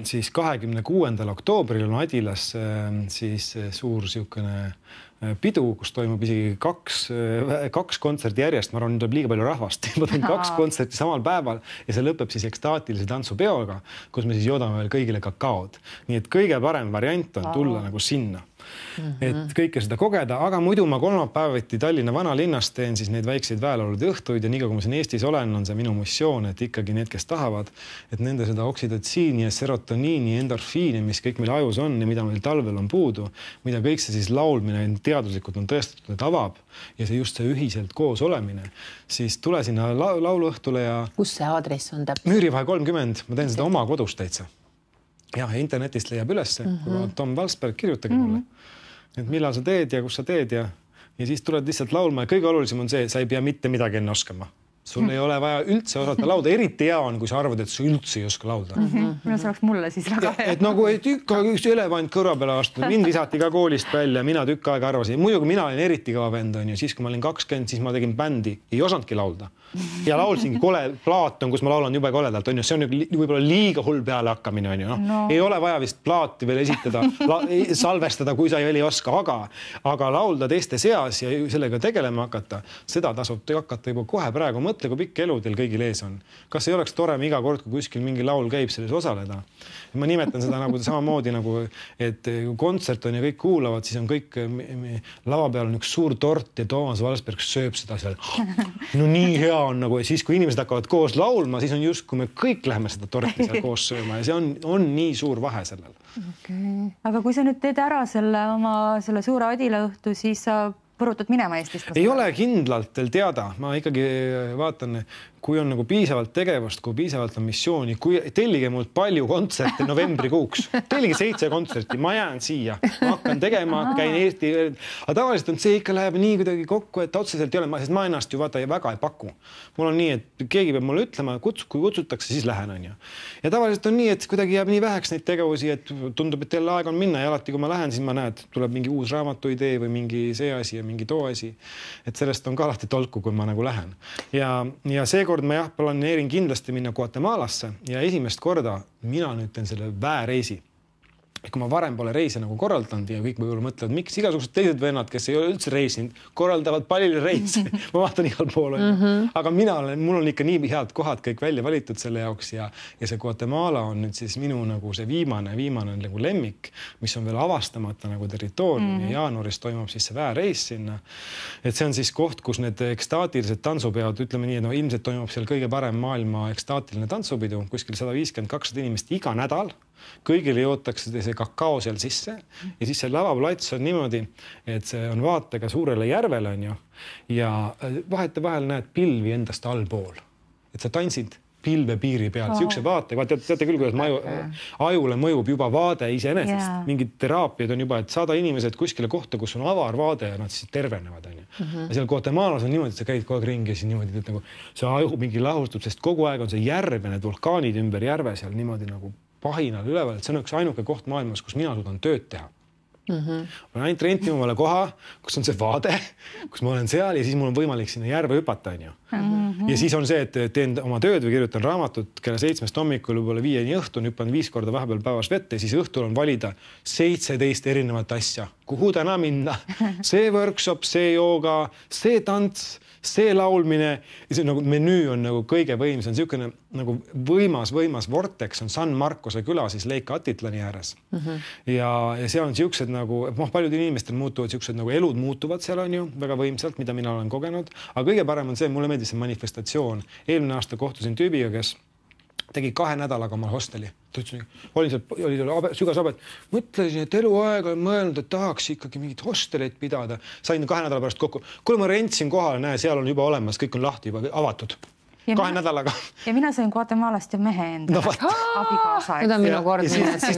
siis 26. oktoobril on Adilas siis suur siukene pidu, kus toimub isegi kaks kontserti järjest. Ma arvan, nüüd tuleb liiga palju rahvast. Ma teen 2 kontserti samal päeval ja see lõpeb siis ekstaatilise tantsupeoga, kus me siis joodame veel kõigile kakaod. Nii et kõige parem variant on tulla nagu sinna. Et kõike seda kogeda, aga muidu ma kolmapäeviti Tallinna vanalinnas teen siis neid väikseid väelaulude õhtuid ja nii kui ma siin Eestis olen, on see minu missioon, et ikkagi need, kes tahavad, et nende seda oksidotsiini ja serotoniini, endorfiini, mis kõik meil ajus on ja mida meil talvel on puudu, mida kõik see siis laulmine teaduslikult on tõestatud, et avab ja see just see ühiselt koos olemine, siis tule sinna lauluõhtule ja... Kus see aadress on täpselt? Müürivahe 30, ma teen seda oma kodus täitsa. Ja internetist leiab ülesse, kui Tom Valsberg, kirjutage mulle, et millal sa teed ja kus sa teed ja siis tuled lihtsalt laulma ja kõige olulisem on see, sa ei pea mitte midagi enne oskama. Sul ei ole vaja üldse osata lauda, eriti hea on, kui sa arvad, et sa üldse ei oska laulda. Mina see oleks mulle siis väga hea. Et nagu üks elevant kõrva peale astunud, mind visati ka koolist välja, mina tükk aega arvasin. Muidugi mina olin eriti kõva vend, on ju, siis kui ma olin 20, siis ma tegin bändi, ei osandki laulda. Ja laulsingi plaat on, kus ma laulan jube koledalt, on ju, see on võib-olla liiga hull peale hakkamine, on ju. No. Ei ole vaja vist plaati veel esitada, salvestada, kui sa ei oska, aga laulda teiste seas ja sellega tegelema hakata, seda tasub hakata juba kohe praegu. Mõtle, kui pikk elu teil kõigil ees on. Kas ei oleks tore iga kord, kui kuskil mingi laul käib, selles osaleda? Ma nimetan seda nagu samamoodi, nagu, et kontsert on ja kõik kuulavad, siis on kõik lava peal on üks suur tort ja Toomas Valsberg sööb seda seal. No nii hea on nagu, ja siis kui inimesed hakkavad koos laulma, siis on just, kui me kõik läheme seda torti seal koos sööma ja see on nii suur vahe sellel. Okay. Aga kui sa nüüd teed ära selle suure Adila õhtu, siis sa põrutad minema Eestist? Ei ole kindlalt teil teada. Ma ikkagi vaatan, kui on nagu piisavalt tegevust, kui piisavalt on missiooni, kui tellige mult palju kontserte novembrikuuks. Tellige 7 kontserti, ma jään siia. Ma hakkan tegema, käin Eesti. Aga tavaliselt on see ikka läheb nii kuidagi kokku, et otseselt ei ole, sest ma ennast ju vaata väga ei paku. Mul on nii, et keegi peab mulle ütlema, kui kutsutakse, siis lähen, on ju. Ja tavaliselt on nii, et kuidagi jääb nii väheks neid tegevusi, et tundub, et teil aeg on minna ja alati, kui ma lähen, siis ma näen, et tuleb mingi uus raamatu idee või mingi see asi ja mingi too asi. Et sellest on ka alati tolku, kui ma nagu lähen. Ja seekord ma planeerin kindlasti minna Guatemalasse ja esimest korda mina nüüd teen selle väereisi. Kui ma varem pole reise nagu korraldanud ja kõik võib-olla mõtlevad, miks igasugused teised vennad, kes ei ole üldse reisinud, korraldavad palju reise. Ma vaatan igal pool. Aga mul on ikka nii head kohad kõik välja valitud selle jaoks ja see Guatemala on nüüd siis minu nagu see viimane nagu lemmik, mis on veel avastamata nagu territoorium ja jaanuaris toimub siis see väereis sinna. Et see on siis koht, kus need ekstaatilised tantsupeod, ütleme nii, et ilmselt toimub seal kõige parem maailma ekstaatiline tantsupidu, kuskil 150-200 inimest iga nädal. Kõigile jootakse see kakao seal sisse ja siis see lavaplats on niimoodi, et see on vaatega suurele järvele on ju ja vahetevahel näed pilvi endast allpool, et sa tantsid pilve piiri peal, siukse vaatega, teate küll, kuidas ajule mõjub juba vaade iseenesest, mingid teraapiad on juba, et saada inimesed kuskile kohta, kus on avar vaade ja nad siis tervenevad on ju. Ja seal Guatemalas on niimoodi, et sa käid kogu aeg ringi ja siis niimoodi, et nagu see aju mingi lahustub, sest kogu aeg on see järve, need vulkaanid ümber järve seal niimoodi nagu pahinal üleval, et see on üks ainuke koht maailmas, kus mina suudan tööd teha. Ma olen ainult rentima omale koha, kus on see vaade, kus ma olen seal ja siis mul on võimalik sinna järve hüpata, on ju. Ja siis on see, et teen oma tööd või kirjutan raamatut kella 7 hommikul võib-olla 5 õhtun, hüppan 5 korda vahepeal päevas vette ja siis õhtul on valida 17 erinevat asja, kuhu täna minna. See workshop, see jooga, see tants, see laulmine, see nagu menüü on nagu kõige võimsam, niisugune nagu võimas vortex on San Marcose küla siis Lake Atitlani ääres. Ja seal on siuksed nagu, paljud inimestel muutuvad siuksed nagu elud muutuvad seal on ju väga võimsalt, mida mina olen kogenud, aga kõige parem on see, mulle meeldis see manifestatsioon. Eelmine aasta kohtusin tüübiga, kes tegi 2 nädalaga oma hosteli. Oli seal sügas abet. Mõtlesin, et eluaeg olen mõelnud, et tahaks ikkagi mingit hosteleid pidada. Sain 2 nädala pärast kokku. Kui ma rentsin kohale, näe, seal on juba olemas, kõik on lahti juba avatud. 2 nädalaga. Ja mina sõin Guatemalast ja mehe enda abikaasa. Nüüd on minu kord. Siis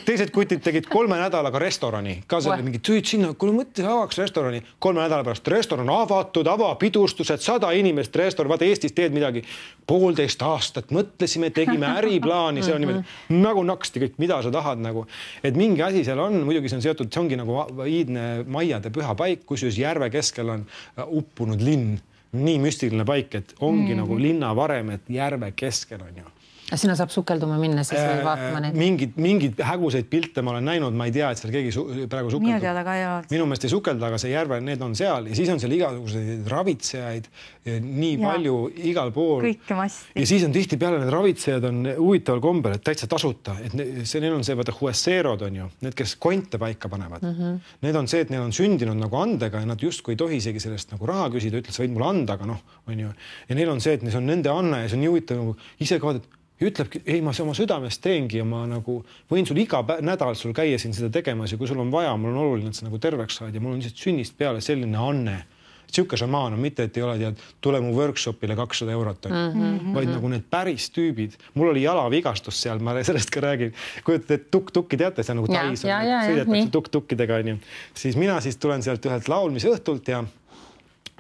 teised kutid tegid 3 nädalaga restorani. Ka see oli mingi tüüd sinna, kui mõttes avaks restorani. 3 nädala pärast restoran avatud, avapidustused, 100 inimest restoran. Vaata Eestis teed midagi 1,5 aastat. Mõtlesime, tegime äriplaani. See on niimoodi nagu naksti kõik, mida sa tahad nagu. Et mingi asi seal on, muidugi see on seotud, see ongi nagu iidne maiade püha paik, kus järve keskel on uppunud linn. Nii müstiline paik, et ongi nagu linna varem, et järve keskel on ju. Sinna saab sukelduma minna, siis või vaatama neid. Mingid häguseid pilte ma olen näinud, ma ei tea, et seal keegi praegu sukeldub. Minu teada ka ei ole. Minu meelest ei sukelda, aga see järve, need on seal ja siis on seal igasuguseid ravitsejaid nii palju igal pool. Kõike massi. Ja siis on tihti peale need ravitsejad on huvitaval kombel, et täitsa tasuta. Et neil on see, vaata, huesseerod on ju, need, kes konte paika panevad. Need on see, et neil on sündinud nagu andega ja nad justkui ei tohi isegi sellest nagu raha küsida, ütles, võid mulle anda, aga on ju. Ja neil on see, et see on nende anne ja see on nii huvitav nagu ise ka ütlebki, ei, ma oma südamest teengi ja ma nagu võin sul iga nädal sul käia siin seda tegemas ja kui sul on vaja, mul on oluline, et sa nagu terveks saad ja mul on lihtsalt sünnist peale selline anne. Siuke šamaan on mitte, et ei ole tead, tule mu workshopile 200 eurot, vaid nagu need päris tüübid. Mul oli jalavigastus seal, ma sellest ka räägin. Kujutate, et tuk-tukki teate, see on nagu tais, sõidetakse tuk-tukkidega. Siis mina siis tulen sealt ühelt laulmise õhtult ja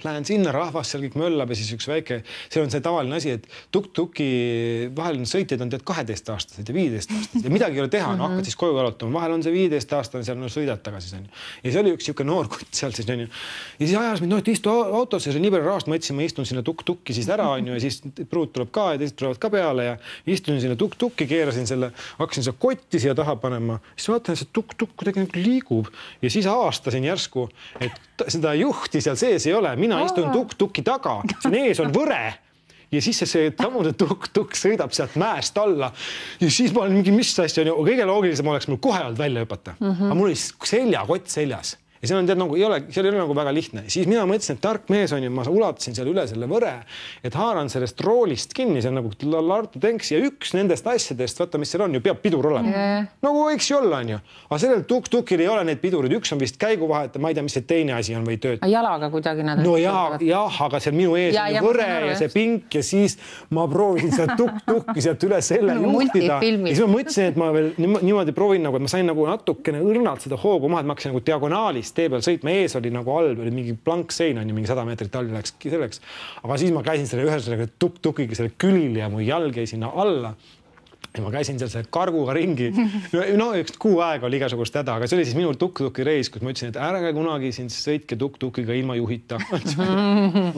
lähen sinna, rahvas seal kõik möllab ja siis üks väike, see on see tavaline asi, et tuk-tuki vahel sõitjad on 12-aastased ja 15-aastased ja midagi ei ole teha, hakkad siis koju jalutama, vahel on see 15-aastane seal sõidad tagasi. Ja see oli üks siuke noor kutt seal siis on ju. Ja siis ajas mind, et istu autosse, see on nii palju rahast, ma ütlesin, ma istun sinna tuk-tukki siis ära on ju ja siis pruut tuleb ka ja teised tulevad ka peale ja istusin sinna tuk-tukki, keerasin selle, hakkasin seda kotti siia taha panema, siis vaatan, see tuk-tukk kuidagi liigub ja siis aastasin järsku, et seda juhti seal sees ei ole. Mina istun tuk-tuki taga, siin ees on võre ja siis see tamune tuk-tuk sõidab sealt mäest alla ja siis ma olen mingi mis asja on ju, kõige loogilisem oleks mul kohe olnud välja hüpata. Aga mul oli seljakott seljas ja seal on tead nagu seal ei ole nagu väga lihtne. Siis mina mõtlesin, et tark mees on ju, ma ulatasin seal üle selle võre, et haaran sellest roolist kinni, see on nagu Lartu tenks ja üks nendest asjadest, vaata mis seal on ju, peab pidur olema. Nagu võiks ju olla on ju. Aga sellel tuk-tukil ei ole need pidurid, üks on vist käiguvahet, ma ei tea, mis see teine asi on või tööd. Jalaga kuidagi nad. No jah, aga seal minu ees on võre ja see pink ja siis ma proovisin seda tuk-tukki sealt üle selle juhtida. Ja siis ma mõtlesin, et ma veel niimoodi proovin nagu, et ma sain nagu natukene õrnalt seda hoogu maha, et ma hakkasin nagu diagonaalis tee peal sõitma, ees oli nagu all, oli mingi plank sein on ju, mingi 100 meetrit all läkski selleks. Aga siis ma käisin selle ühe tuk-tukiga selle külil ja mu jalg jäi sinna alla. Ja ma käisin seal selle karguga ringi. No üks kuu aega oli igasugust häda, aga see oli siis minul tuk-tuki reis, kus ma ütlesin, et ärge kunagi siin sõitke tuk-tukiga ilma juhita.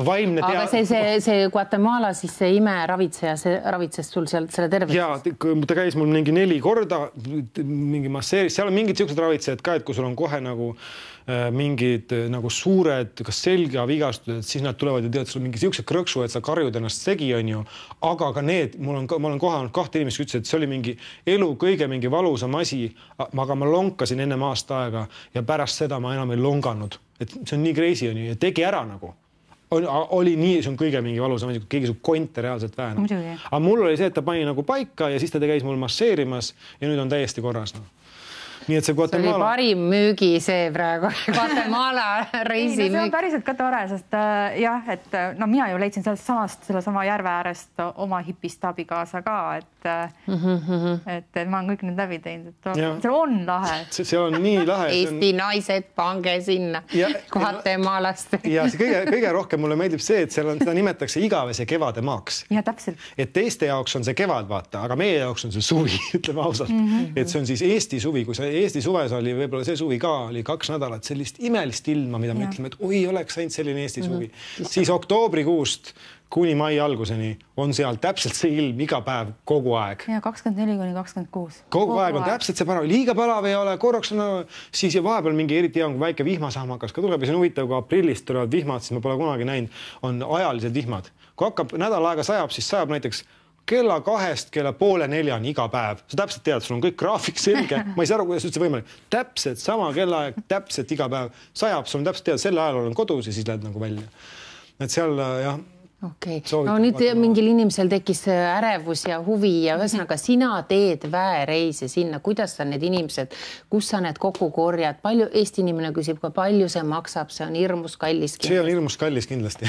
Vaimne aga see Guatemala, siis see imeravitseja, see ravitses sul seal selle tervist? Jaa, ta käis mul mingi 4 korda, mingi masseeris, seal on mingid siuksed ravitsejad ka, et kui sul on kohe nagu mingid nagu suured, kas selgavigastused, siis nad tulevad ja tead, sul mingi siukse krõksu, et sa karjud ennast segi on ju, aga ka need, ma olen kohanud 2 inimest, ütles, et see oli mingi elu kõige mingi valusam asi, aga ma lonkasin enne aasta aega ja pärast seda ma enam ei longanud, et see on nii crazy on ju ja tegi ära nagu. Oli nii, see on kõige mingi valusam asi, kui keegi su konte reaalselt väänab. Aga mul oli see, et ta pani nagu paika ja siis ta käis mul masseerimas ja nüüd on täiesti korras. Nii et see Guatemala... See oli parim müügi see praegu Guatemala reisi müük. See on päriselt ka tore, sest jah, et no mina ju leidsin selle sama järve äärest oma hipist abikaasa ka, et ma olen kõik need läbi teinud, et see on lahe. See on nii lahe. Eesti naised, pange sinna Guatemalast. Ja see kõige rohkem mulle meeldib see, et seal on, seda nimetatakse igavese kevade maaks. Ja täpselt. Et teiste jaoks on see kevad, vaata, aga meie jaoks on see suvi, ütleme ausalt. Et see on siis Eesti suvi, kui sa Eesti suves oli, võib-olla see suvi ka oli 2 nädalat sellist imelist ilma, mida me ütleme, et oi, oleks ainult selline Eesti suvi. Siis oktoobrikuust kuni mai alguseni on seal täpselt see ilm iga päev kogu aeg. Ja 24–26. Kogu aeg on täpselt see parav, liiga parav ei ole, korraks on siis ja vahepeal mingi eriti hea, kui väike vihmasahmakas ka tuleb ja see on huvitav, kui aprillist tulevad vihmad, siis ma pole kunagi näinud, on ajalised vihmad. Kui hakkab nädal aega sajab, siis sajab näiteks kella 2 kella 3:30 iga päev. Sa täpselt tead, sul on kõik graafik selge. Ma ei saa aru, kuidas üldse võimalik. Täpselt sama kellaaeg, täpselt iga päev sajab. Sul on täpselt tead, selle ajal olen kodus ja siis lähed nagu välja. Et seal jah, okei. No nüüd mingil inimesel tekkis ärevus ja huvi ja ühesõnaga sina teed väereise sinna, kuidas sa need inimesed, kus sa need kokku korjad, palju Eesti inimene küsib, kui palju see maksab, see on hirmus kallis. See on hirmus kallis kindlasti.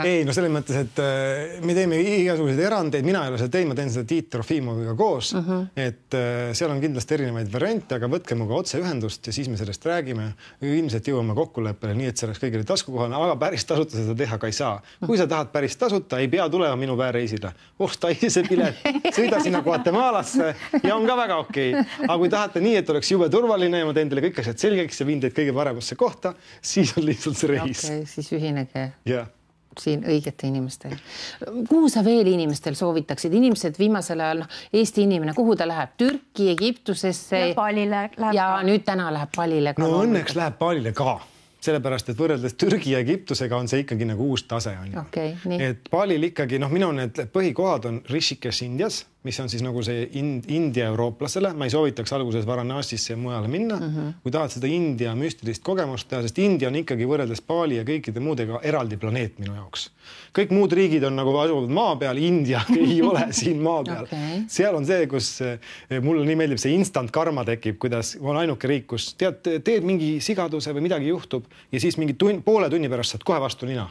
Ei, no selles mõttes, et me teeme igasuguseid erandeid, mina ei ole seda teinud, ma teen seda Tiit Trofimoviga koos, et seal on kindlasti erinevaid variante, aga võtke muga otse ühendust ja siis me sellest räägime. Ilmselt jõuame kokkuleppele nii, et see oleks kõigile taskukohane, aga päris tasuta seda teha ka ei saa. Kui sa tahad päris tasuta, ei pea tulema minu väereisile. Osta ise pilet, sõida sinna Guatemalasse ja on ka väga okei. Aga kui tahate nii, et oleks jube turvaline ja ma teen teile kõik asjad selgeks ja viin teid kõige paremasse kohta, siis on lihtsalt see reis. Okei, siis ühinege. Jah. Siin õigete inimestel. Kuhu sa veel inimestel soovitaksid? Inimesed viimasel ajal, Eesti inimene, kuhu ta läheb? Türki, Egiptusesse? Ja Palile läheb. Ja nüüd täna läheb Palile ka. No õnneks läheb Palile ka. Sellepärast, et võrreldes Türgi ja Egiptusega on see ikkagi nagu uus tase. Okay, nii. Et Palil ikkagi, minu need põhikohad on Rishikesh Indias, mis on siis nagu see India eurooplasele. Ma ei soovitaks alguses Varanasisse ja mujale minna. Kui tahad seda India müstilist kogemust teha, sest India on ikkagi võrreldes Pali ja kõikide muudega eraldi planeet minu jaoks. Kõik muud riigid on nagu asuvad maa peal, India ei ole siin maa peal. Okay. Seal on see, kus mulle nii meeldib see instant karma tekib, kuidas on ainuke riik, kus teed mingi sigaduse või midagi juhtub ja siis mingi poole tunni pärast saad kohe vastu nina.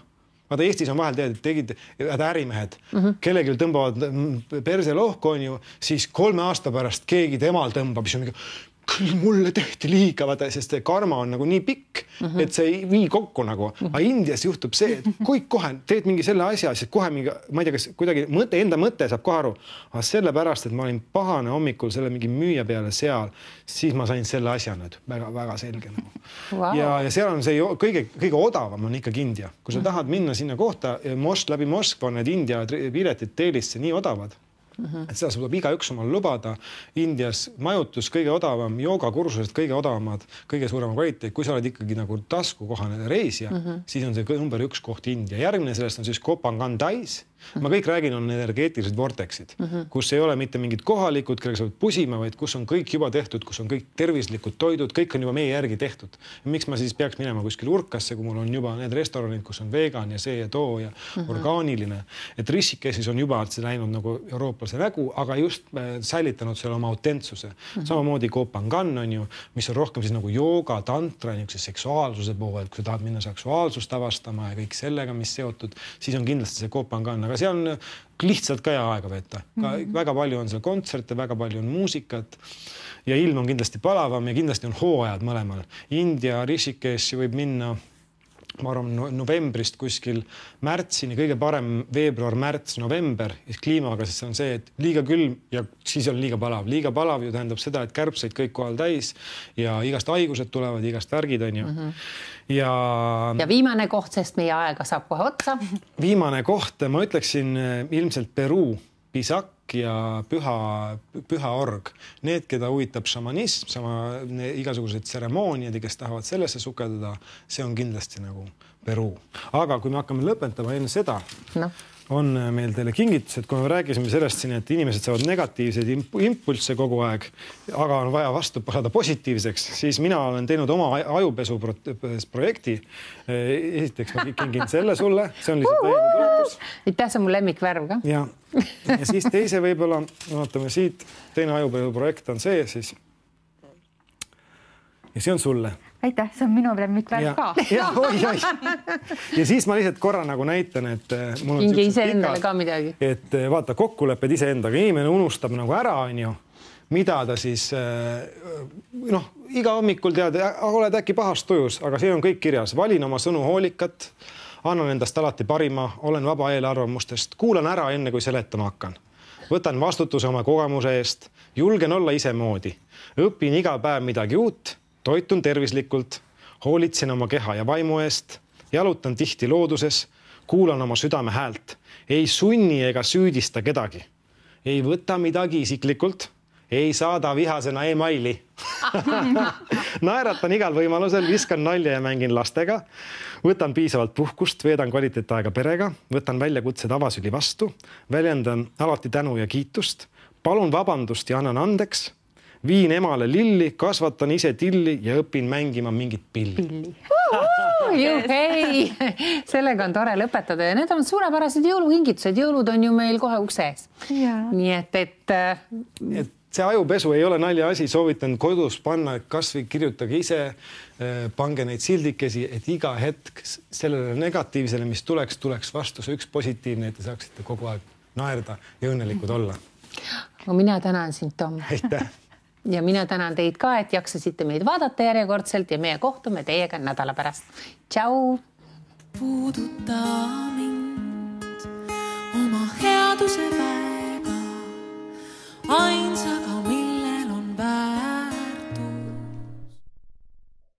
Vaata, Eestis on vahel tegid ärimehed, kellelgi tõmbavad perse lohku on ju, siis 3 aasta pärast keegi temal tõmbab, siis on mingi, küll mulle tehti liiga, vaata, sest karma on nagu nii pikk, et see ei vii kokku nagu. Aga Indias juhtub see, et kui kohe teed mingi selle asja, siis kohe mingi, ma ei tea, kas kuidagi enda mõte saab kohe aru, aga sellepärast, et ma olin pahane hommikul selle mingi müüja peale seal, siis ma sain selle asja nüüd väga selge. Wow. Ja seal on see kõige odavam on ikkagi India. Kui sa tahad minna sinna kohta, läbi Moskva on need India piletid teelisse nii odavad, et seda saab iga üks omal lubada. Indias majutus kõige odavam, joogakursused kõige odavamad, kõige suurema kvaliteet. Kui sa oled ikkagi nagu taskukohane reisija, siis on see number 1 koht India. Järgmine sellest on siis Kopangan Tais. Ma kõik räägin, on energeetilised vorteksid, kus ei ole mitte mingid kohalikud, kellega sa võid pusima, vaid kus on kõik juba tehtud, kus on kõik tervislikud toidud, kõik on juba meie järgi tehtud. Ja miks ma siis peaks minema kuskil Urkasse, kui mul on juba need restoranid, kus on vegan ja see ja too ja orgaaniline. Et Rishikeshis on juba see läinud nagu eurooplase nägu, aga just säilitanud selle oma autentsuse. Samamoodi Kopangan on ju, mis on rohkem siis nagu jooga, tantra, seksuaalsuse poole, et kui sa tahad minna seksuaalsust avastama ja kõik sellega, mis seotud, siis on kindlasti see Kopangan. Aga see on lihtsalt ka hea aega veeta. Väga palju on seal kontserte, väga palju on muusikat ja ilm on kindlasti palavam ja kindlasti on hooajad mõlemal. India, Rishikesh võib minna, ma arvan, novembrist kuskil märtsini, kõige parem veebruar, märts, november ja kliimaga, sest see on see, et liiga külm ja siis on liiga palav. Liiga palav ju tähendab seda, et kärbseid kõik kohal täis ja igast haigused tulevad, igast värgid on ju. Ja viimane koht, sest meie aega saab kohe otsa. Viimane koht, ma ütleksin ilmselt Peruu, Pisak ja püha org. Need, keda huvitab šamanism, igasugused tseremooniad, kes tahavad sellesse sukeldada, see on kindlasti nagu Peruu. Aga kui me hakkame lõpetama enne seda, on meil teile kingitused, kui me rääkisime sellest siin, et inimesed saavad negatiivseid impulsse kogu aeg, aga on vaja vastu saada positiivseks, siis mina olen teinud oma ajupesu projekti. Esiteks ma kingin selle sulle, see on lihtsalt täiega toetus. Aitäh, see on mu lemmikvärv ka. Ja siis teise võib-olla, vaatame siit, teine ajupesu projekt on see siis. Ja see on sulle. Aitäh, see on minu lemmikvärv ka. Ja siis ma lihtsalt korra nagu näitan, et mul on kingi ise endale ka midagi. Et vaata, kokkulepped ise endaga. Inimene unustab nagu ära, on ju, mida ta siis, iga hommikul tead, oled äkki pahast tujus, aga see on kõik kirjas. Valin oma sõnu hoolikat, annan endast alati parima, olen vaba eelarvamustest, kuulan ära enne, kui seletama hakkan. Võtan vastutuse oma kogemuse eest, julgen olla ise moodi, õpin iga päev midagi uut, toitun tervislikult, hoolitsen oma keha ja vaimu eest, jalutan tihti looduses, kuulan oma südame häält, ei sunni ega süüdista kedagi, ei võta midagi isiklikult, ei saada vihasena e-maili. Naeratan igal võimalusel, viskan nalja ja mängin lastega, võtan piisavalt puhkust, veedan kvaliteetaega perega, võtan väljakutsed avasüli vastu, väljendan alati tänu ja kiitust, palun vabandust ja annan andeks, viin emale lilli, kasvatan ise tilli ja õpin mängima mingit pilli. Juhei! Sellega on tore lõpetada ja need on suurepärased jõulukingitused. Jõulud on ju meil kohe ukses. Nii et see ajupesu ei ole nalja asi, soovitan kodus panna, kas või kirjutage ise, pange neid sildikesi, et iga hetk sellele negatiivsele, mis tuleks vastu see üks positiivne, et te saaksite kogu aeg naerda ja õnnelikud olla. Mina tänan sind, Tom. Aitäh! Ja mina tänan teid ka, et jaksasite meid vaadata järjekordselt ja meie kohtume teiega nädala pärast. Tšau! Puuduta mind oma headuse